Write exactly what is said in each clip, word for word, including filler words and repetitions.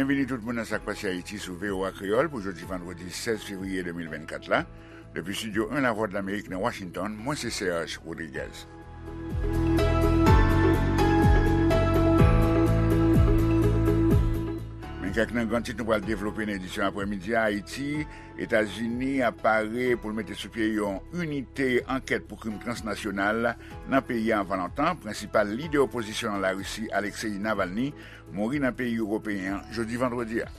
Byenvini tout moun nan Sa k Pase Ayiti sou V O A Kreyòl pou jodi vandredi sèz fevriye de mil vennkat la. Depi Estidyo en Lavwadlamerik nan Washington, mwen se Serge Rodriguez. Men kèk nan gran tit nou pral devlope nan edisyon aprèmidi a. Ayiti, Etazini ap pare pou l mete sou pye yon inite ankèt pou krim transnasyonal nan peyi a anvan lontan. Prensipal lidè opozisyon an Larisi, Alexei Navalny, mouri nan peyi ewopeyen an jodi vandredi a.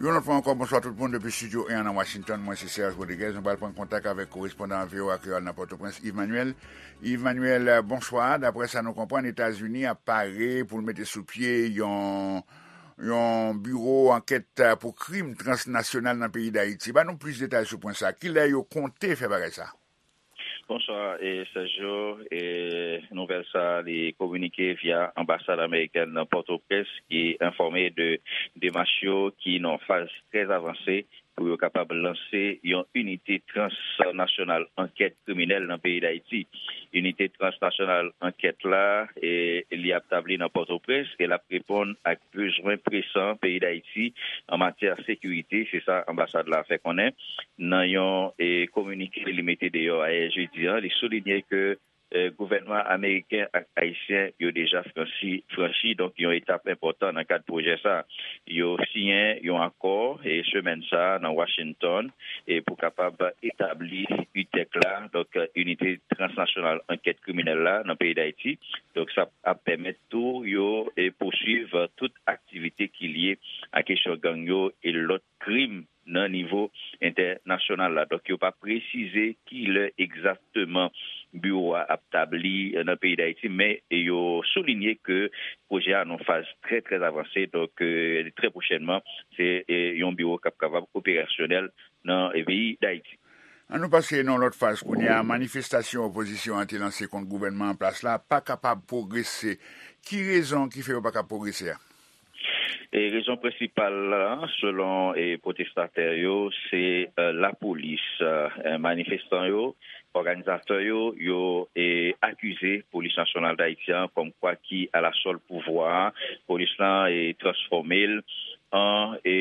Yon lòt fwa ankò, bonswa tout moun depi Estidyo en an nan Washington. Mwen se Serge Rodriguez. Nou pral pran kontak avèk korespondan V O A Kreyòl nan Pòtoprens, Yves Manuel. Yves Manuel, bonswa. Daprè sa nou konprann, Etazini ap pare pou l mete sou pye yon, yon biwo ankèt pou krim transnasyonal nan peyi Dayiti. Ban nou plis detay sou pwen sa. Kilè yo konte fè bagay sa? Bonswa, e, Sergio. E, nouvèl sa a, li kominike via anbasad amerikèn nan Pòtoprens, ki enfòme de demach yo ki nan faz trè avanse pou yo kapab lanse yon inite transnasyonal ankèt kriminèl nan peyi Dayiti. Inite transnasyonal ankèt la, e, li ap tabli nan Pòtoprens e l ap reponn ak bezwen presan peyi Dayiti an matyè sekirite, se sa anbasad la fè konnen. Nan yon, e, kominike li mete deyò ayè jedi a, li soulinye ke, e, gouvènman ameriken ak ayisyen yo deja franchi, franchi, donk, yon etap enpòtan nan kad pwojè sa. Yo siyen yon akò, e, semèn sa a nan Washington, e, pou kapab etabli UTEC la, donk, Inite Transnasyonal Ankèt Kriminèl la nan peyi Dayiti. Donk, sa ap pèmèt tou yo, e, pouswiv tout aktivite ki lye a kesyon gang yo e lòt krim nan nivo entènasyonal la. Donk, yo pa presize kilè egzakteman biwo a ap tabli nan peyi Dayiti, men yo soulinye ke pwojè a nan faz trè, trè avanse. Donk, e, trè pwochènman, se, e, yon biwo k ap kapab operasyonèl nan, e, peyi Dayiti. An nou pase nan lòt faz kounye a, manifestasyon opozisyon an te lanse kont gouvènman an plas la pa kapab pwogrese. Ki rezon ki fè yo pa kapab pwogrese a? E rezon prensipal la, selon, e, pwotestatè yo, se, e, lapolis. E, manifestan yo, òganizatè yo, yo, e, akize Polis Nasyonal Dayiti an kòmkwa ki alasòl pouvwa a. Polis lan, e, transfòme l an, e,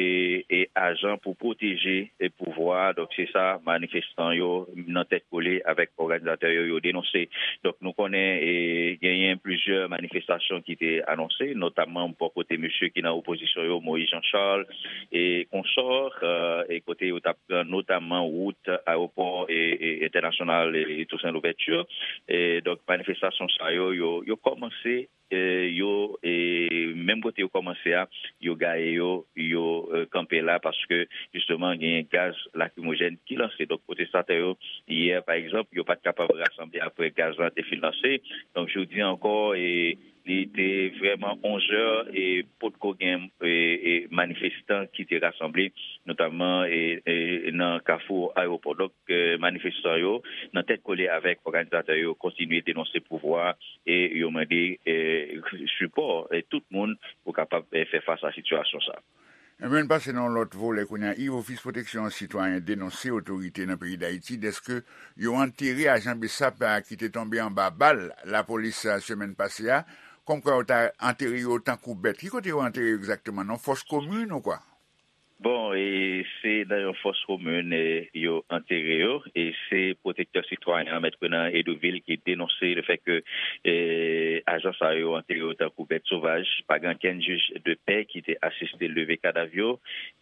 e, ajan pou pwoteje, e, pouvwa a. Donk, se sa manifestan yo nan tèt kole avèk òganizatè yo, yo denonse. Donk, nou konnen, e, genyen plizyè manifestasyon ki te anonse, notamman bò kote mesye ki nan opozisyon yo, Moïse Jean Charles e konsò, e, e kote yo t ap pran notamman wout ayewopò, e, e, entènasyonal, e, e Toussaint Louverture. E, donk, manifestasyon sa yo, yo, yo kòmanse, e, yo, e, menm kote yo kòmanse a, yo gaye yo, yo, e, kanpe la paske, jisteman, genyen gaz lakrimojèn ki lanse. Donk, pwotestatè yo, yè, pa egzanp, yo pa t kapab rasanble apre gaz lan te fin lanse. Donk, jodi ankò, e, li te vrèman onzè e potko gen, e, e, manifestan ki te rasanble, notamman, e, e, nan kafou ayewopò. Donk, e, manifestan yo, nan tèt kole avèk òganizatè yo, kontinye denonse pouvwa a e yo mande, e, sipò, e, tout moun pou kapab, e, fè fas a sitiyasyon sa a. Ebyen, n pase nan yon lòt volè kounye a. Yves, Ofis Pwoteksyon Sitwayen denonse otorite nan peyi Dayiti dèske yo antere ajan BSAP a ki te tonbe anba bal lapolis, a, semèn pase a, kòmkwa yo ta antere yo tankou bèt. Ki kote yo antere yo egzakteman? Nan fòs komin ou kwa? Bon, e se nan yon fòs komin, e, yo antere yo, e se pwotektè sitwayen an, Mèt Renan Hédouville, ki denonse lefètke, e, ajan sa yo antere yo tankou bèt sovaj. Pa gen okenn jij de pè ki te asiste leve kadav yo.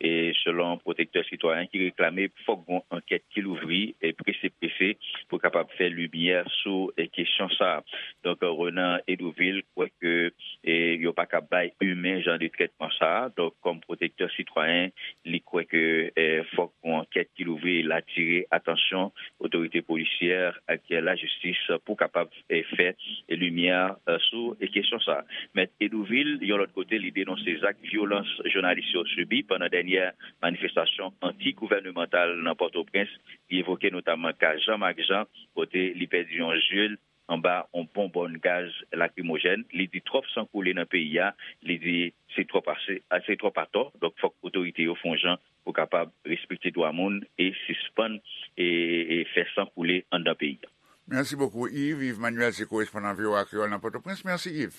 E selon pwotektè sitwayen ki reklame fòk gon ankèt ki louvri, e, prese prese pou kapab fè limyè sou, e, kesyon sa a. Donk, Renan Hédouville kwè ke, e, yo pa ka bay imen jan de trètman sa a. Donk, kòm pwotektè sitwayen, li kwè ke, e, fòk yon ankèt ki louvri, l atire atansyon otorite polisyè ak lajistis pou kapab, e, fè limyè, e, sou, e, kesyon sa a. Mèt Hédouville, yon lòt kote, li denonse zak vyolans jounalis yo sibi pandan dènyè manifestasyon anti-gouvènemantal nan Pòtoprens. Li evoke notamman ka Jean Marc Jean, kote li pèdi yon zye l anba yon bonbòn gaz lakrimojèn. Li di twòp san koule nan peyi a. Li di se twòp ase, a, se twòp atò. Donk, fòk otorite yo fè yon jan pou kapab respekte dwa moun e sispann, e, e fè san koule anndan peyi a. Merci beaucoup, Yves. Yves Manuel, se korespondan V O A Kreyòl nan Pòtoprens. Mèsi, Yves.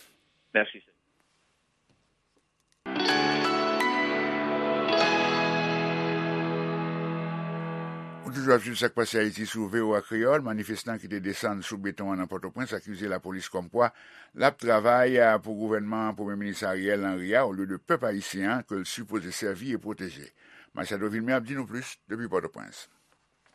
Mèsi. Ou toujou ap swiv Sa k Pase Ayiti sou V O A Kreyòl. Manifestan ki te desann sou beton an nan Pòtoprens akize lapolis kòmkwa l ap travay, a, pou gouvènman Premye Minis Ariel Henry a, olye de pèp ayisyen an ke l sipoze sèvi e pwoteje. Machado Vilmé ap di nou plis depi Pòtoprens.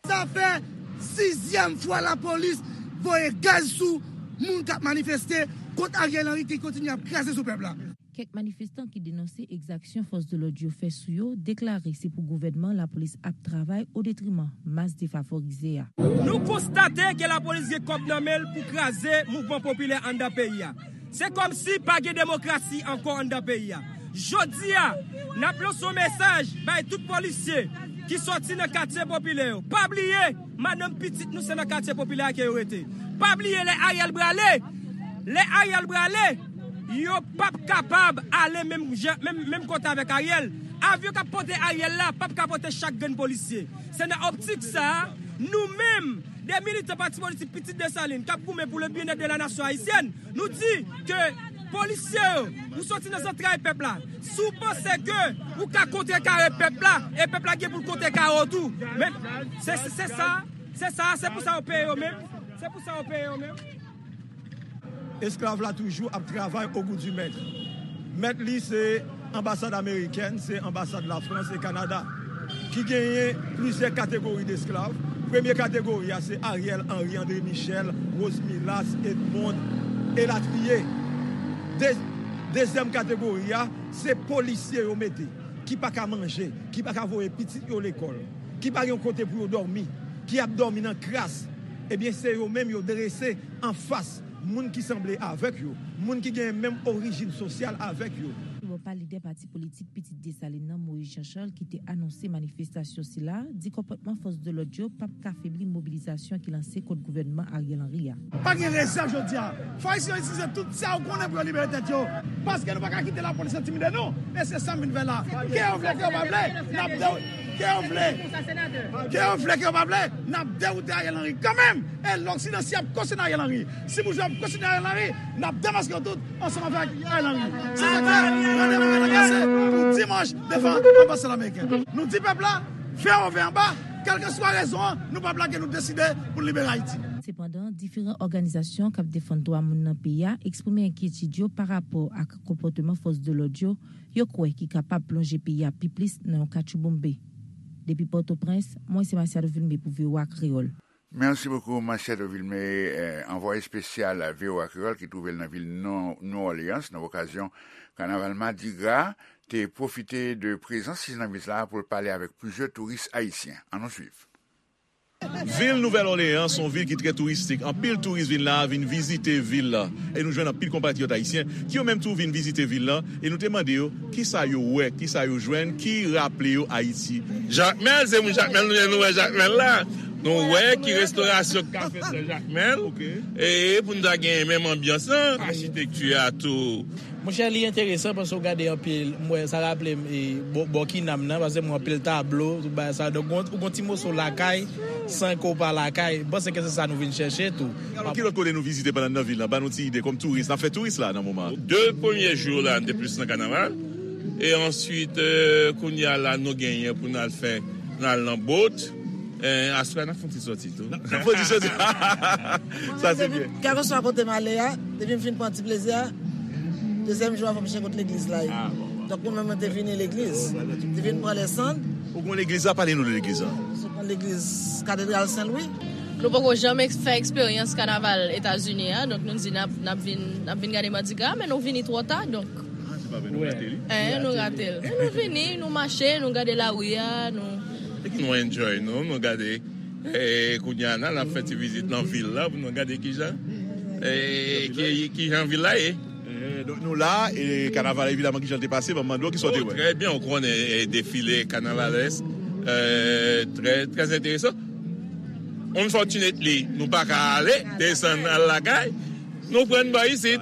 Sa fè sizyèm fwa lapolis voye gaz sou moun k ap manifeste kont Ariel Henry ki kontinye ap kraze sou pèp la. Kèk manifestan ki denonse egzaksyon fòs de lòd yo fè sou yo deklare se pou gouvènman lapolis ap travay o detriman mas defavorize a. Nou konstate ke lapolis gen kòb nan men l pou kraze mouvman popilè anndan peyi a. Se kòmsi pa gen demokrasi ankò anndan peyi a. Jodi a, n ap lanse yon mesaj bay tout polisye ki sòti nan katye popilè yo. Pa bliye, madanm, pitit nou se nan katye popilè a ke yo rete. Pa bliye lè Ariel prale, lè Ariel prale, yo p ap kapab ale menm jan, menm, menm kote avèk Ariel. Avyon k ap pote Ariel la p ap ka pote chak grenn polisye. Se nan optik sa a, nou menm, de militan pati politik Pitit Desalin k ap goumen pou le bien-être de la nation haïtienne, nou di ke polisye yo, ou soti nan zantray pèp la. Si w panse ke ou ka kontrekare pèp la, e pèp la gen pou l kontrekare w tou. Men, se, se, se sa, se sa, se pou sa yo peye yo menm. Se pou sa yo peye yo menm. Esklav la toujou ap travay au goût du maître. Mèt li se anbasad amerikèn, se anbasad Lafrans e Kanada, ki genyen plizyè kategori d esklav. Premye kategori a se Ariel Henry, André Michel, Rose Milas, Edmond, elatriye. De-, dezyèm kategori a, se polisye yo mete, ki pa ka manje, ki pa ka voye pitit yo lekòl, ki pa gen yon kote pou yo dòmi, ki ap dòmi nan kras. Ebyen, se yo menm yo drese anfas moun ki sanble avèk yo, moun ki gen menm orijin sosyal avèk yo. Bò pa lidè pati politik Pitit Desalin nan, Moïse Jean Charles, ki te anonse manifestasyon sila, di konpòtman fòs de lòd yo p ap ka febli mobilizasyon ki lanse kont gouvènman Ariel Henry a. Pa gen rezèv jodi a. Fò Ayisyen yo itilize tout sa yo konnen pou yo libere tèt yo. Paske nou pa ka kite lapolis entimide nou. E se sa m vin fè la. Ke yo vle, ke yo pa vle, n ap de-, ke yo vle, ke yo vle, ke yo pa vle, n ap dewoute Ariel Henry kanmenm. E Loksidan, si y ap kontinye Ariel Henry, si boujwa ap kontinye Ariel Henry, n ap demaske yo tout ansanm avèk Ariel Henry. Se sa k fè randevou an anonse pou dimanch devan anbasad ameriken. Nou di pèp la, V O V anba, kèlkeswa rezon an, nou p ap lage, nou deside pou n libere Ayiti. Sepandan, diferan òganizasyon k ap defann dwa moun nan peyi a eksprime enkyetid yo pa rapò ak konpòteman fòs de lòd yo, yo kwè ki kapab plonje peyi a pi plis nan yon katchouboumbe. Depi Pòtoprens, mwen se Masiado Vilmé pou V O A Kreyòl. Merci beaucoup, Machado Vilmé, eh, anvwaye espesyal V O A Kreyòl ki twouve l nan vil New Orleans nan okazyon kanaval Madigra, te pwofite de prezans li nan vil la pou l pale avèk plizyè touris ayisyen. Ann nou swiv. Vil Nouvèl Òleyan se yon vil ki trè touristik. Anpil touris vin la, vin vizite vil la. E nou jwenn anpil konpatriyòt ayisyen ki yo menm tou vin vizite vil la. E nou te mande yo kisa yo wè, kisa yo jwenn, ki raple yo Ayiti. Jakmèl, se moun Jakmèl nou ye, nou wè Jakmèl la. Nou wè ki restorasyon k ka fèt nan Jakmèl. E pou n ta gen menm anbyans lan, achitekti a tou. Monchè, li enteresan paske w gade anpil, m wè, sa raple m, e, bò, bò Kinam nan, paske m wè anpil tablo, tout bagay sa. Donk, ou gon ti moso lakay, san ke w pa lakay. M panse ke se sa nou vin chèche tou. Alò, ki lòt kote nou vizite pandan n nan vil la? Ban nou ti ide kòm touris. N ap fè touris la nan moman an. De premye jou la, n te plis nan kanaval. E answit, eh, kounye a la, nou genyen pou n al fè, n al nan bot. Eh, aswè a, n ap fè yon ti sòti tou. N ap fè yon ti sòti. Sa se byen. Kèlkeswa kote m ale a, depi m fin pran ti plezi a, dezyèm jou a, fò m chèche kot legliz la ye. Donk, mwen menm, mwen te vini legliz. Te vin pran lèsann. Ou konn legliz la? Pale nou de legliz la. Se yon legliz Katedral Sen Lwi. Nou poko janm eks-, fè eksperyans kanaval Etazini a, donk nou di n ap, n ap vin, n ap vin gade Madigra, men nou vini twò ta, donk. Ah, se pa vre, nou rate li? Eh, nou rate l. Nou vini, nou mache, nou gade lari a, nou. Nou enjoy nou, nou gade. Eh, kounye a, n ap fè ti vizit nan vil la, pou nou gade kijan, eh, ki, kijan vil la ye. Eh, donk nou la, e kanaval, evidaman, kijan l te pase, ban m mande w, kisa w te wè? Oh, trè byen, ou konnen, eh, defile kanavalès, eh, trè, trè enteresan. Unfortunately, nou pa ka ale, desann al lakay. Nou pran bò isit.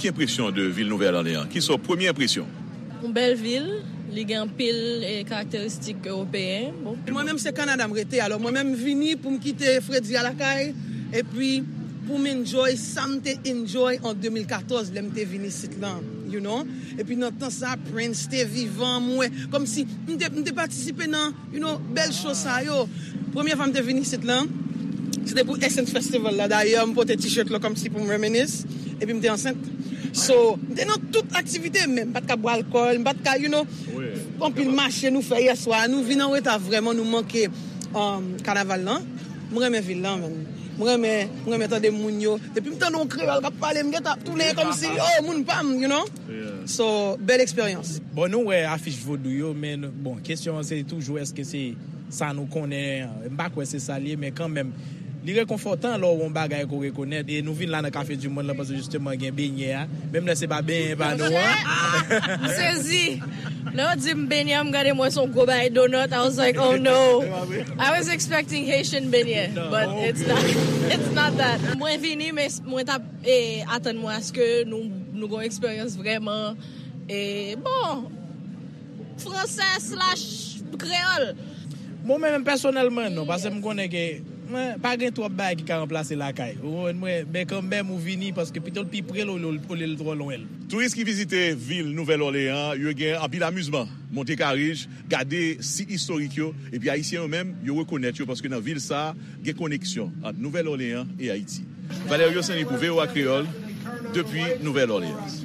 Ki enpresyon de vil Nouvèl Òleyan? Kisa w premye enpresyon? Yon bèl vil, Li gen anpil eh, karakteristik ewopeyen. Bon. Mwen menm se Kanada m rete, alò mwen menm m vini pou m kite fredi a lakay, epi pou m enjoy sa m te enjoy an de mil katòz lè m te vin isit lan, you know. Epi nan tan sa Prince te vivan, m wè kòmsi m te, m te patisipe nan, you know, bèl show sa yo. Premye fwa m te vin isit lan, se te pou Essence Festival la. Dayè, m pote t-shirt lan kòmsi pou m reminisce. Epi m te ansent. So, m te nan tout aktivite, men m pa t ka bwè alkòl, m pa t ka, you know, anpil mache nou fè yèswa. Nou vin an reta vrèman, nou manke um, kanaval lan. M renmen vil lan, men. M renmen, m renmen tande moun yo. Depi m tande yon kreyòl k ap pale, m gentan ap tounen kòmsi, oh, moun pa m, you know? So, bèl eksperyans. Bon, nou wè afich vodou yo, men bon, kesyon an se toujou èske se sa nou konnen, m pa kwè se sa l ye, men kanmenm, li rekonfòtan lè w wè yon bagay ke w rekonèt, e nou vin la nan Cafe du Monde lan paske jisteman gen benyen a, menm lè se pa benyen pa nou an. M sezi. Lè yo di m benyen, m gade m wè se yon gwo bagay donut, I was like, oh no. I was expecting Haitian benyen, but it's not, it's not that. Mwen vini, men mwen t ap eh, atann mwen aske nou, nou gen yon eksperyans vrèman, eh, bon, fransè slash kreyòl. Bon, men menm pèsonèlman, non, paske m konnen ke mwen, pa gen twòp bagay ki ka ranplase lakay. Ou konprann mwen? Men kanmenm, ou vini paske pito l pi pre l olye l twò lwen l. Touris ki vizite vil Nouvèl Òleyan an, yo gen anpil amizman, monte karij, gade sit istorik yo, epi Ayisyen yo menm, yo rekonèt yo paske nan vil sa a, gen koneksyon ant Nouvèl Òleyan e Ayiti. Valerio Saint-Louis pou V O A Kreyòl, depi Nouvèl Òleyan.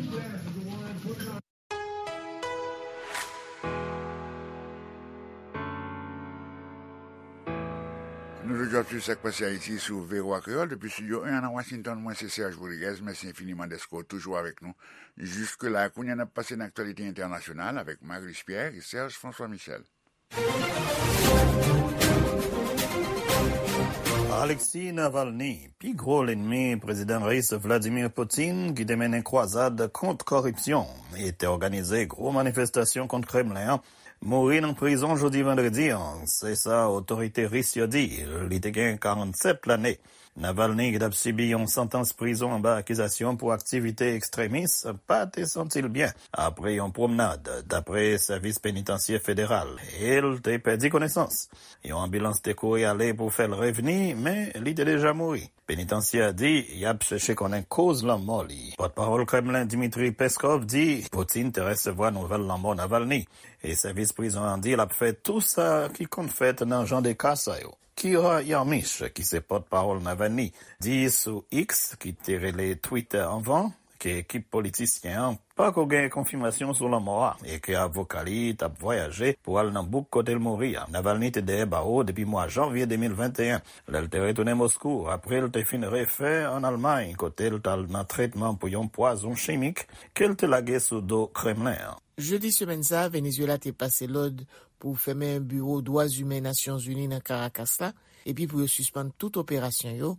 Nou toujou ap swiv sa k pase Ayiti sou V O A Kreyòl depi Estidyo en an nan Washington. Mwen se Serge Rodriguez. Mèsi enfiniman dèske w toujou avèk nou jiske la. Kounye a n ap pase nan aktyalite entènasyonal avèk Marius Pierre e Serge François Michel. Alexei Navalny, pi gwo lènmi Prezidan Ris Vladimir Putin, ki te mennen kwazad kont kòripsyon e te òganize gwo manifestasyon kont Kremlen an, mouri nan prizon jodi vandredi an, se sa otorite ris yo di. Li te gen karannsèt lane. Navalny, ki t ap sibi yon santans prizon anba akizasyon pou aktivite ekstremis, pa te santi l byen apre yon pwomnad, dapre sèvis penitansye federal, e l te pèdi konesans. Yon anbilans te kouri ale pou fè l revni, men li te deja mouri. Penitansye a di y ap chèche konnen koz lanmò li. Pòtpawòl Kremlen Dmitry Peskov di Putin te resevwa nouvèl lanmò Navalny, e sèvis prizon an di l ap fè tou sa ki konn fèt nan jan de ka sa yo. Kira Yarmysh, ki se pòtpawòl Navalny, di sou X, ki te rele Twitter anvan, ke ekip politisyen an pako gen konfimasyon sou lanmò a e ke avoka li t ap vwayaje pou al nan bouk kote l mouri a. Navalny te dèyè bawo depi mwa janvye de mil venteyen, lè l te retounen Moskou apre l te fin refè ann Almay, kote l t al nan tretman pou yon pwazon chimik ke l te lage sou do Kremlen an. Jedi semèn sa a, Venezuela te pase lòd pou fèmen biwo dwa imen Nasyonzini nan Caracas la, epi pou yo sispann tout operasyon yo,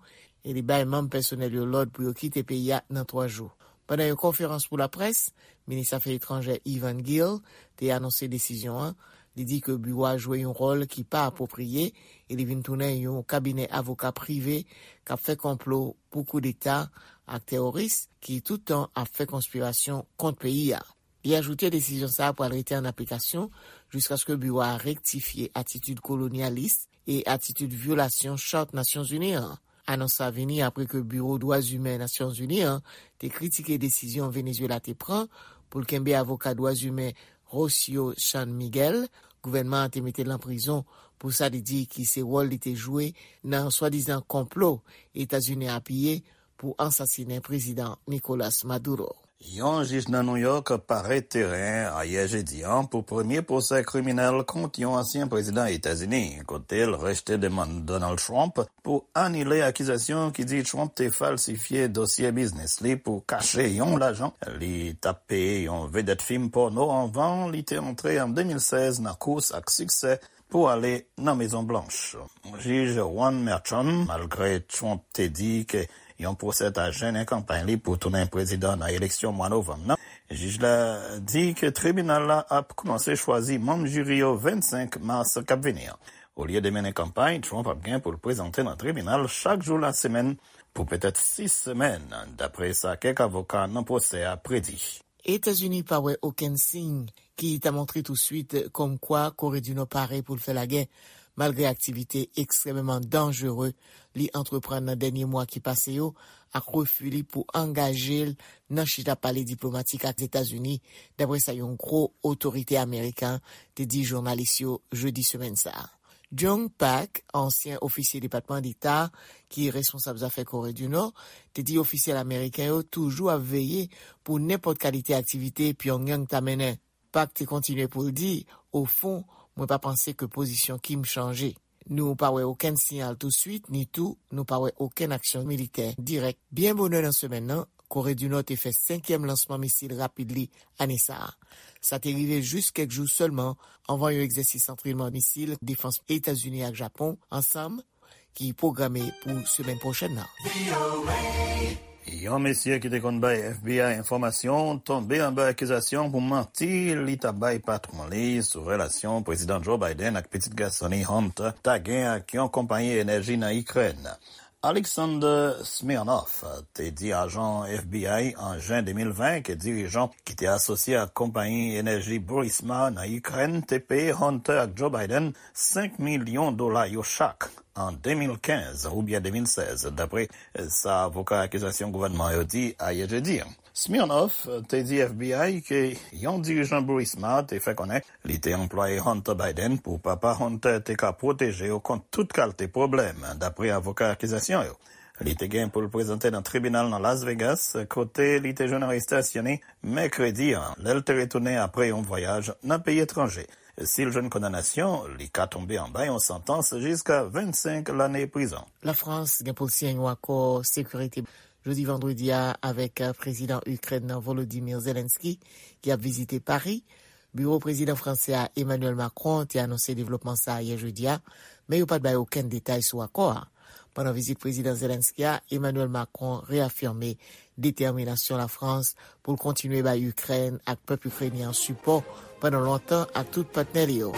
e li bay manm pèsonèl yo lòd pou yo kite peyi a nan twa jou. Pandan yon konferans pou laprès, minis afè etranjè Ivan Gil te anonse desizyon an. Li di ke biwo a jwe yon wòl ki pa apwopriye e li vin tounen yon kabinè avoka prive k ap fè konplo pou koudeta ak teworis ki tout tan ap fè konspirasyon kont peyi a. Li ajoute desizyon sa a pral rete an aplikasyon jiskaske biwo a rektifye atitid kolonyalis e atitid vyolasyon Chart Nasyonzini an. Anons sa vini apre ke Biwo Dwa Imen Nasyonzini an te kritike desizyon Venezuela te pran pou l kenbe avoka dwa imen Rocio San Miguel. Gouvènman an te mete l nan prizon pou sa li di ki se wòl li te jwe nan swadizan konplo Etazini apiye pou ansasinen Prezidan Nicolas Maduro. Yon jij nan New York parèt teren ayè jedi an pou premye pwosè kriminèl kont yon ansyen prezidan Etazini, kote l rejte demann Donald Trump pou anile akizasyon ki di Trump te falsifye dosye biznis li pou kache yon lajan li t ap peye yon vedèt fim pòno anvan li te antre an de mil sèz nan kous ak siksè pou ale nan Mezon Blanch. Jij Juan Merchan, malgre Trump te di ke yon pwosè ta jennen kanpay li pou tounen prezidan nan eleksyon mwa novanm nan, jij la di ke tribinal la ap kòmanse chwazi manm jiri yo vennsenk mas k ap vini an. Olye de mennen kanpay, Trump ap gen pou l prezante nan tribinal chak jou lasemèn pou petèt sis semèn, dapre sa kèk avoka nan pwosè a predi. Etazini pa wè okenn siy ki ta montre touswit kòmkwa Kore di Nò pare pou l fè lagè, malgre aktivite ekstrèmeman danjere li antreprann nan dènye mwa ki pase yo, ak refi li pou angaje l nan chita pale diplomatik ak Etazini, dapre sa yon gwo otorite ameriken te di jounalis yo jedi semèn sa a. Jong Pak, ansyen ofisye Depatman Deta ki responsab zafè Kore di Nò, te di ofisyèl ameriken yo toujou ap veye pou nenpòt kalite aktivite Pyongyang ta mennen. Pak te kontinye pou l di, "Ofon, mwen pa panse ke pozisyon Kim chanje. Nou pa wè okenn siyal touswit, ni tou nou pa wè okenn aksyon militè dirèk." Byen bonè nan semèn nan, Kore di Nò te fè senkyèm lansman misil rapid li ane sa a. Sa te rive jis kèk jou sèlman anvan yon egzèsis antrènman misil defans Etazini ak Japon ansanm ki pwograme pou semèn pwochèn nan. Yon mesye ki te konn bay F B I enfòmasyon tonbe anba akizasyon pou manti li ta bay patwon li sou relasyon Prezidan Joe Biden ak pitit gason li Hunter ta gen ak yon konpayi enèji nan Ikrèn. Alexander Smirnov te di ajan F B I an jen de mil ven ke dirijan ki te asosye ak konpayi enèji Burisma nan Ikrèn te peye Hunter ak Joe Biden senk milyon dola yo chak an de mil kenz oubyen de mil sèz, dapre sa avoka akizasyon gouvènman yo di ayè jedi a. Smirnov te di F B I ke yon dirijan Burisma te fè konnen li te anplwaye Hunter Biden pou papa Hunter te ka pwoteje yo kont tout kalte pwoblèm, dapre avoka akizasyon yo. Li te gen pou l prezante nan tribinal nan Las Vegas, kote li te jwenn arestasyon li mèkredi a, lè l te retounen apre yon vwayaj nan peyi etranje. Si l jwenn kondanasyon, li ka tonbe anba yon santans jiska vennsenk lane prizon. Lafrans gen pou l siyen yon akò sekirite jodi vandredi a avèk, eh, prezidan Ikrèn nan Volodymyr Zelensky, ki ap vizite Pari. Biwo prezidan fransè a, Emmanuel Macron, te anonse devlopman sa a yè jedi a, men yo pa t bay okenn detay sou akò a. Pandan vizit prezidan Zelensky a, Emmanuel Macron reyafime detèminasyon Lafrans pou l kontinye bay Ikrèn ak pèp ikrenyen an sipò pandan lontan ak tout patnè li yo.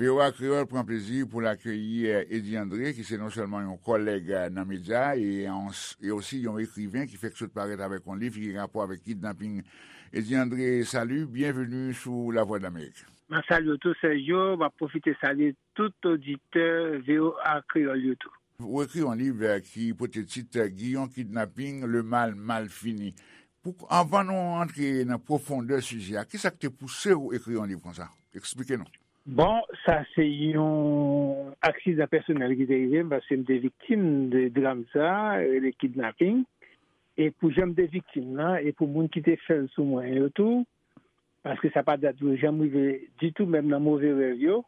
V O A Kreyòl pran plezi pou l akeyi, eh, Eddy André, ki se non sèlman yon kòlèg, eh, nan medya e, e osi yon ekriven ki fèk sot parèt avèk yon liv ki gen rapò avèk kidnaping. Eddy André, salut, bienvenue sou Lavwadlamerik. M ap salye w tou, Sergio. M ap pwofite salye tout oditè V O A Kreyòl yo tou. Ou ekri yon liv, eh, ki pote tit, eh, Giyon Kidnaping, Le Mal Mal Fini. Pou, anvan nou antre nan pwofondè sijè a, kisa k te pouse w ekri yon liv konsa? Eksplike nou. Bon, sa se yon aksidan pèsonèl ki te rive m, paske m te viktim de dram sa, rele kidnaping. E pou jan m te viktim nan, e pou moun ki te fè l sou mwen yo tou, paske sa pa dat yo janm rive ditou, menm nan move rèv yo,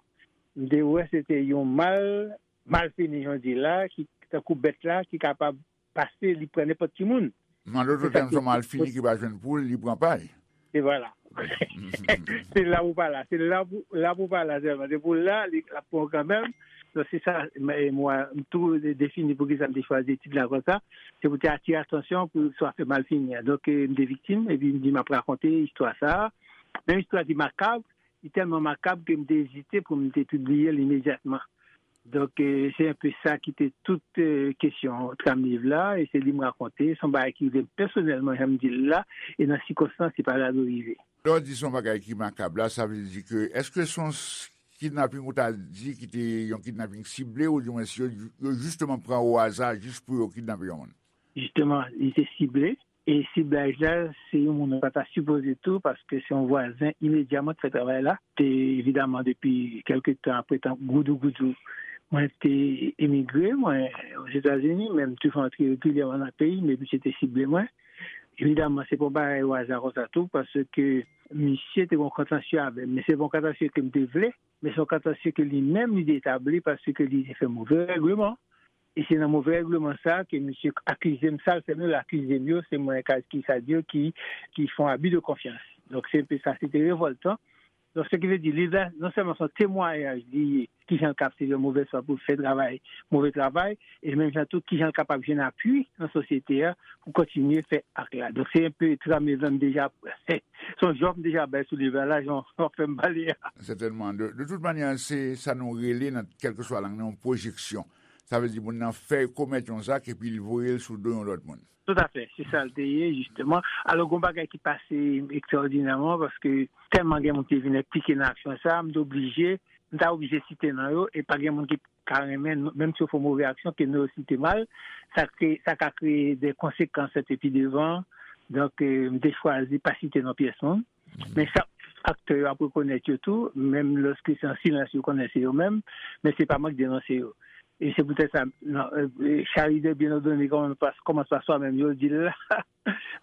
m te wè se te yon mal, mal fini, jan w di la, ki tankou bèt la, ki kapab pase, li pran nenpòt ki moun. An dòt tèm, se yon mal fini ki pa jwenn poul, li pran pay. E vwala. Se la pou pa la. Se la pou, la pou pa la sèlman. Se pou la, li, l ap pran w kanmenm. Donk, se sa, m, e mwa, m tou de-, defini poukisa m te chwazi tit la konsa. Se pou te atire atansyon pou sa fè mal fini an. Donk, e, m te viktim, epi m di m ap rakonte istwa sa a. Men istwa ki makab, li tèlman makab ke m te ezite pou m te pibliye l imedyatman. Donk, e, se enpe sa ki te tout, e, kesyon tram liv la, e se li m rakonte, se yon bagay ki rive m pèsonèlman, jan m di l la, e nan sikonstans, se pa gade rive. Lè w di se yon bagay ki makab la, sa vle di ke, èske se yon s-, kidnaping ou ta di ki te yon kidnaping sible, oudimwens yo, yo jisteman pran o aza jis pou yo kidnape yon moun? Jisteman, li te sible. E siblaj la, se yon moun ou pa ta sipoze tou, paske se yon vwazen imedya mwen te fè travay la. Te, evidaman, depi kèlke tan apre, tan goudou goudou, mwen te emigre, mwen, Ozetazini, men m toujou antre regilyèman nan peyi m, epi misye te sible mwen. Evidaman, se pa yon bagay o aza konsa tou, paske misye te gen yon kontansye avè m, men se pa yon kontansye ke m te vle, men se yon kontansye ke li menm li te etabli paske li te fè move règleman. E se nan move règleman sa a ke misye akize m, sa l fè m yo, l akize m yo, se mwen ka, ki sa di yo, ki, ki fè yon abi de konfyans. Donk, se enpe sa, se te revòltan. Donk, se ki vle di, liv la, non sèlman se yon temwayaj li ye, kijan l ka ap sèvi yon movèz fwa pou l fè travay, move travay, e menm jan tou, kijan l kapab jwenn apui nan sosyete a pou kontinye fè ak la. Donk, se enpe tram liv la m deja, se yon jòf m deja bay sou liv la, la, jan w fè m pale a. Sètènman. De, de tout manyè, se sa nou rele nan kèlkeswa lang nan, yon pwojeksyon. Sa vle di moun nan fè komèt yon zak epi l voye l sou do yon lòt moun. Toutafè, se sa l te ye, jisteman. Alò, gen yon bagay ki pase ekstraòdinèman, paske tèlman gen moun ki vin enplike nan aksyon sa a, m te oblije, m ta oblije site non yo, e pa gen moun ki ka renmen, menm si yo fè yon move aksyon, ke non yo site mal, sa kreye, sa ka kreye de konsekans epi devan. Donk, eh, m te chwazi pa site non pyès moun. Men chak aktè yo ap rekonèt yo tou, menm lòske se an silans yo konnen se yo menm, men se pa mwen k denonse yo. E se poutèt sa, non, eh, eh, charité bien ordonnée commence par, commence par soi-même, yo di l la.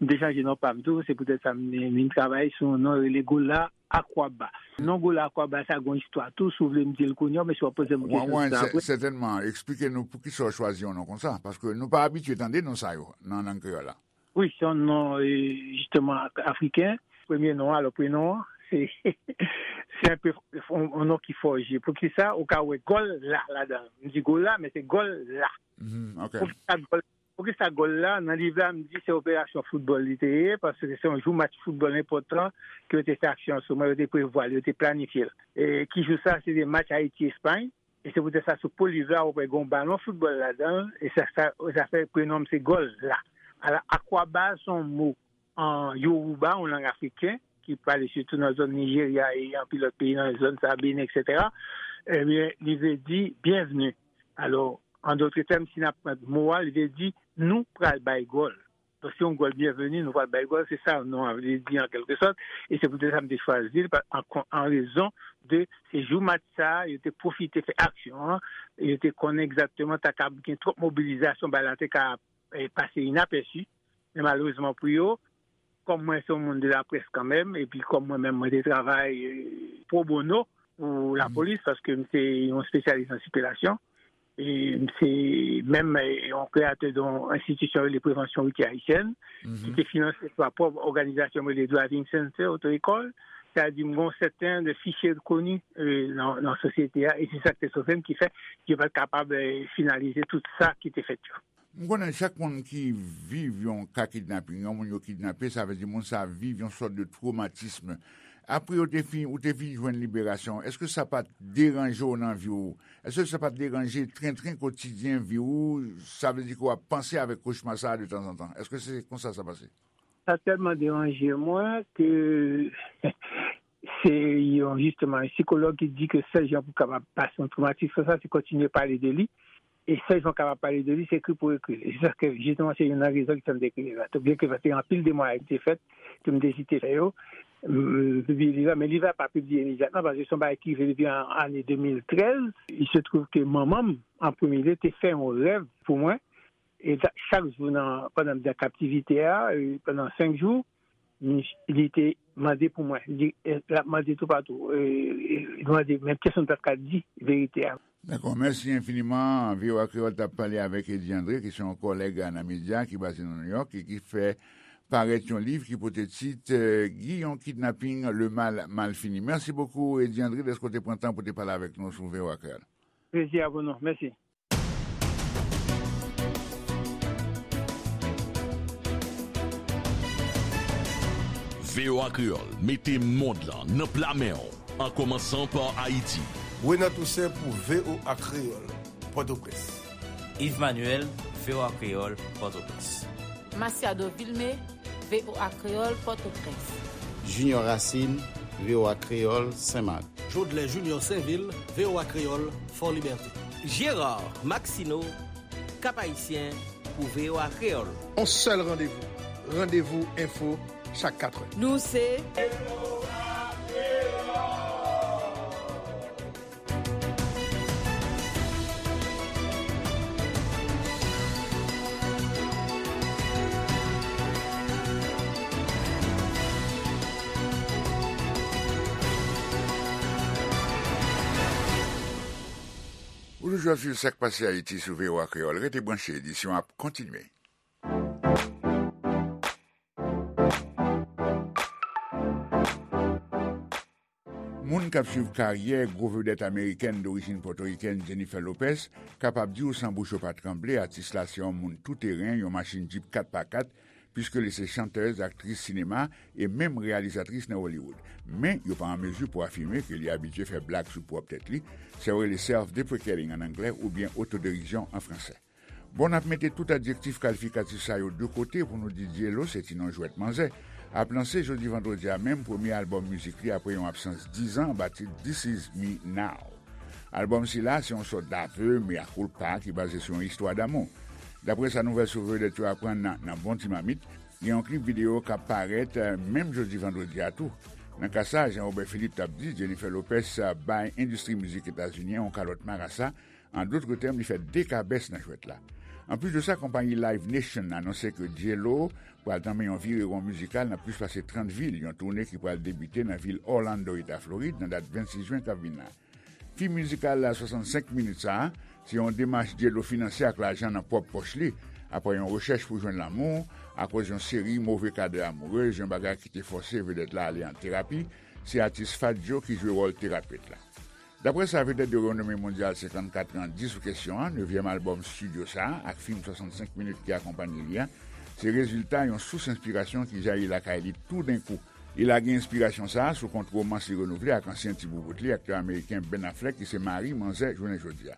M te chanje non pa m tou, se poutèt sa m, m vin travay sou yon non rele Gola Akwaba. Non Gola Akwaba sa gon istwa tou, si w vle m di l kounye a, men si w ap poze m kesyon sou sa apre. Sètènman, eksplike nou poukisa w chwazi yon non konsa, paske nou pa abitye tande non sa yo nan lang kreyòl la. Wi, se yon non, eh, jisteman, afriken. Premye non an, alò, prenon an, se, se enpe yon, yon non ki fòje. Poukisa? Ou ka wè gòl la ladan l. M di gòl la, men se gòl la. Mhm, ok. Poukisa gòl, poukisa gòl la? Nan liv la, m di se operasyon foutbòl li te ye, paske se yon jou match foutbòl enpòtan ke yo te fè aksyon sou mwen, yo te prevwa l, yo te planifye l. E ki jou sa? Se te match Ayiti-Espay. E se poutèt sa, sou po liv la, ou wè gen yon balon foutbòl ladan l, e sa, sa, sa fè prenon m se Gòl la. Alò, Akwaba se yon mo an Yoruba, yon lang afriken, ki pale sitou nan zòn Nijerya e anpil lòt peyi nan zòn sa, Benin, etsetera. Ebyen, li vle di byenvni. Alò, an dòt tèm, si n ap pran mo a, li vle di nou pral bay gòl. Donk, se yon gòl byenveni, nou pral bay gòl, se sa non an vle di an kèlke sòt. E se poutèt sa m te chwazi l, pa, an kon-, an rezon de se jou match sa a, yo te pwofite fè aksyon an, yo te konnen egzakteman ta ka gen twòp mobilizasyon, bagay la te ka, eh, pase inapèsi. Men malerezman pou yo, kòm mwen se yon moun de laprès kanmenm, epi kòm mwen menm mwen te travay, eh, pro bono pou lapolis, paske m se yon espesyalis nan sikilasyon, e m se menm, eh, yon kreyatè de yon enstitisyon rele Prevansyon Woutyè Ayisyèn, ki te finanse pa pwòp òganizasyon m rele Driving Center, oto ekòl. Sa di m gen yon sèten de fichye koni, eh, nan, nan sosyete a, e se sa k te sove m, ki fè ke yo pa t kapab, eh, finalize tout sa ki te fèt yo. M konnen chak moun ki viv yon ka kidnaping, yon moun yo kidnape, sa vle di moun sa viv yon sòt de twomatism. Apre yo te fin, ou te fin jwenn liberasyon, èske sa pa t deranje w nan vi w? Èske sa pa t deranje trentren kotidyen vi w? Sa vle di ke w ap panse avèk kochma sa a de tanzantan. Èske se konsa sa pase? Sa tèlman deranje mwen ke se yon, jisteman, yon sikològ ki di ke sèl jan pou w kapab pase yon twomatis konsa, se kontinye pale de li. E sèl jan w kapab pale de li, se ekri pou ekri l. E se sa ke, jisteman, se youn nan rezon ki fè m te ekri liv la. Byen ke te gen anpil demwayaj ki te fèt, ke m te ezite fè yo, m, m pibliye liv la, men liv la pa pibliye imedyatman, paske se yon bagay ki rive depi an, ane de mil trèz. Il se trouve ke manman m, an premye lye, te fè yon rèv pou mwen, e ta-, chak jou nan, pandan m te an kaptivite a, e pandan senk jou, li te mande pou mwen. Li, eh, l ap mande toupatou. Eh, eh, li mande, men pèsonn pa t ka di verite a. Dakò, mèsi enfiniman. V O A Kreyòl t ap pale avèk Eddy André, ki se yon kòlèg nan medya, ki baze nan Nouyòk e ki fè parèt yon liv ki pote tit, eh, Guy, yon kidnaping, le mal mal fini. Mèsi bokou, Eddy André, dèske w te pran tan pou te pale avèk nou sou V O A Kreyòl. Plezi a pou nou. Mèsi. V O A Kreyòl mete mond lan nan pla men w, an kòmansan pa Ayiti. Renan Toussaint pou V O A Kreyòl, Pòtoprens. Yves Manuel, V O A Kreyòl, Pòtoprens. Masiado Vilmé, V O A Kreyòl, Pòtoprens. Junior Racine, V O A Kreyòl, Senmak. Jodlè Junior Sainvil, V O A Kreyòl, Fòlibète. Gérard Maxineau, Cap-Haïtien, pou V O A Kreyòl. On sèl randevou, Randevou Enfo, chak katrè. Nou se Ou toujou ap swiv Sa k Pase Ayiti sou V O A Kreyòl. Rete branche, edisyon ap kontinye. Moun k ap swiv karyè gwo vedèt amerikèn dorijin pòtorikèn Jennifer Lopez kapab di w san bouch yo pa tranble, atis la se yon moun touteren, yon machin Jeep kat pa kat, piske li se chantèz, aktris sinema e menm reyalizatris nan Hollywood. Men, yo pa an mezi pou afime ke li abitye fè blag sou pwòp tèt li, sa yo rele self-deprecating an anglè oubyen otoderizyon an fransè. Bon, n ap mete tout adjektif kalifikatif sa yo de kote pou nou di J-Lo se ti non jwèt manzè ap lanse jodi vandredi a menm premye albòm mizik li apre yon absans diz an anba tit This Is Me Now. Albòm sila se yon sòt d'aveu mea culpa ki baze sou yon istwa damou. Daprè sa nouvèl sou vedèt yo aprann nan, nan Bon Ti Mamit, gen yon klip videyo k ap parèt, eh, menm jodi vandredi a tou. Nan ka sa, Jean Robert Philippe t ap di, Jennifer Lopez, eh, bay endistri mizik etazini an yon kalòt marasa, an dòt tèm, li fè de kabès nan jwèt la. Anplis de sa, konpayi Live Nation anonse ke J-Lo pral tanmen yon virewon mizikal nan plis pase trant vil, yon toune ki pral debite nan vil Orlando, eta Florid, nan dat vennsis jen k ap vin la. Fim mizikal la swasannsenk minit sa a, se yon demach J-Lo finanse ak lajan nan pwòp pòch li, apre yon rechèch pou jwenn lanmou, akoz yon seri move kadè amourez, yon bagay ki te fòse vedèt la ale an terapi, se atis Fat Joe ki jwe wòl terapet la. Daprè sa vedèt de renome mondyal senkannkat an di sou kesyon an, nevyèm albòm estidyo sa a, ak fim swasannsenk minit ki akonpanye li a, se rezilta yon sous enspirasyon ki jayi lakay li toudenkou. Li lage enspirasyon sa a sou kont womans li renouvle ak ansyen ti boubout li, aktè ameriken Ben Affleck, ki se mari manzè jounen jodi a.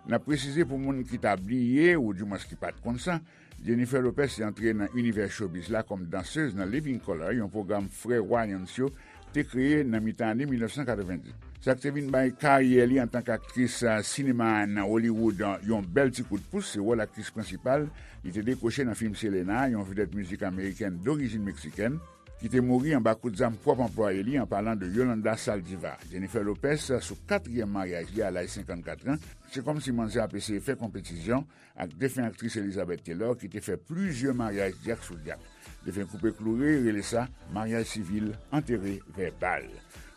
N ap presize pou moun ki ta bliye, oudimwens ki pa t konn sa, Jennifer Lopez te antre nan inivè showbiz la kòm dansez nan Living Colour, yon pwogram frè Wayans yo te kreye nan mitan ane mil nèf san katrevenndis. Sa k te vin bay karyè li antanke aktris, a, sinema nan Hollywood, a, yon bèl ti kout pous, se wòl aktris prensipal li te dekwoche nan fim Selena, yon vedèt mizik amerikèn dorijin meksikèn, ki te mouri anba kout zam pwòp anplwaye li, an palan de Yolanda Saldivar. Jennifer Lopez, sou katriyèm maryaj li a laj senkannkat an, se kòmsi manzè ap eseye fè konpetisyon ak defen aktris Elizabeth Taylor, ki te fè plizyè maryaj dyak sou dyak. Defen koupe kloure, rele sa maryaj sivil, antere vèbal.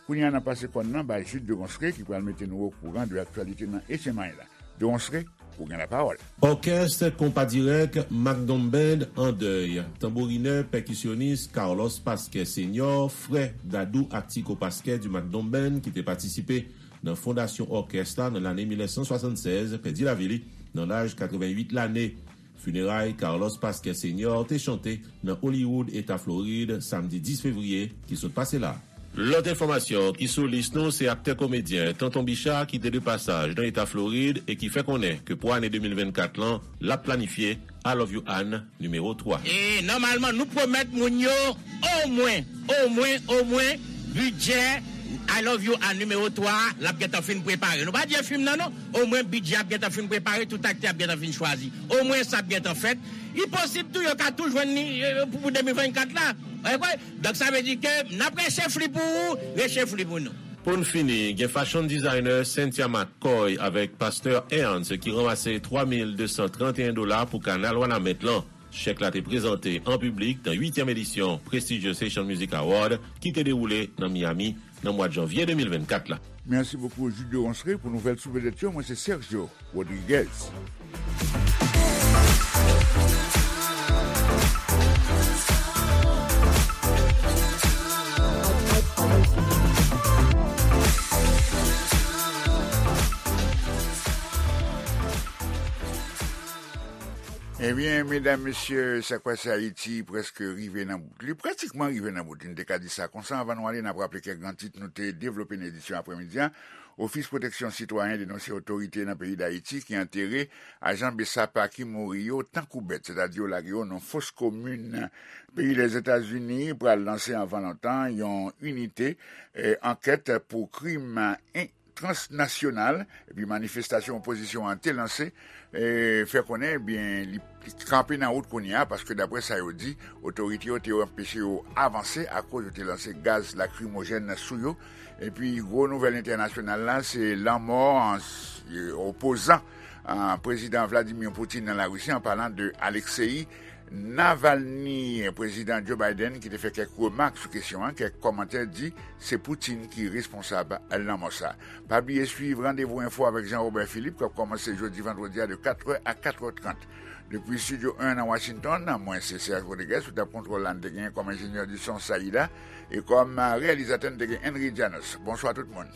Kounye a, n ap pase kòn nan bay Jude de Ronsre, ki pral mete nou okouran de aktyalite nan H M I la. De Ronsre, ou gen lapawòl. Òkès Konpa Dirèk Macdon Band an dèy. Tanbourinè, pèkisyonis Carlos Pasquet Senior, frè Dadou ak Tico Pasquet du Macdon Band, ki te patisipe nan fondasyon òkès la nan lane mil nèf san swasannsèz, pèdi lavi li nan laj katrevenn uit lane. Fineray Carlos Pasquet Senior te chante nan Hollywood, eta Florid, samdi dis fevriye ki sot pase la. Lòt enfòmasyon ki sou lis nou, se aktè komedyen Tonton Bicha ki te de pasaj nan eta Florid e ki fè konnen ke pou ane de mil vennkat lan, l ap planifye I Love You Ann nimewo twa. E nòmalman, nou pwomèt moun yo omwen, omwen, omwen, bidjè I Love You Ann nimewo twa a, l ap gentan fin prepare. Nou pa di e fim nan non, omwen bidjè ap gentan fin prepare, tout aktè ap gentan fin chwazi. Omwen sa ap gentan fèt. Li posib tou, yo ka tou jwenn li, e, pou, pou de mil vennkat la. Ou kwè? Donk, sa vle di ke n ap rechèf li pou ou, rechèf li pou nou. Pou n fini, gen fashion designer Cynthia McCoy avèk pastè Ernst ki ranmase twa mil de san trannteyen dola pou kanal Wanament lan. Chèk la te prezante an piblik nan uityèm edisyon Prestigious Haitian Music Award ki te dewoule nan Miami nan mwa janvye de mil vennkat la. Mèsi bokou, Jude de Ronsre, pou nouvèl sou vedèt yo. Mwen, se Sergio Rodriguez. Ebyen, medam, mesye, Sa k pase Ayiti prèske rive nan bout li, pratikman rive nan bout li, n te ka di sa konsa. Anvan nou ale, n ap raple kèk gran tit nou te devlope nan edisyon aprèmidi a. Ofis Pwoteksyon Sitwayen denonse otorite nan peyi Dayiti ki antere ajan BSAP ki mouri yo tankou bèt, sètadi yo lage yo nan fos komin. Peyi Lèzetazini pral lanse anvan lontan yon inite, eh, ankèt pou krim, eh, transnasyonal, epi manifestasyon opozisyon an te lanse, eh, fè konnen, ebyen, li, li kanpe nan wout kounye a, paske daprè sa yo di, otorite yo te anpeche yo avanse akoz yo te lanse gaz lakrimojèn sou yo. Epi gwo nouvèl entènasyonal la, se lanmò an, eh, opozan, ah, prezidan Vladimir Putin nan Larisi, an palan de Alexei Navalny. Prezidan Joe Biden ki te fè kèk remak sou kesyon an, kèk kòmantè di se Putin ki responsab lanmò sa. Pa bliye swiv Randevou Enfo avèk Jean Robert Philippe k ap kòmanse jodi vandredi a de katrè a katrè trant. Depi Estidyo en nan Washington, mwen se Serge Rodriguez, sou tab kontwòl la n te genyen kòm enjenyè di son Saïda, e kòm reyalizatè n te gen Henry Janos. Bonswa tout moun.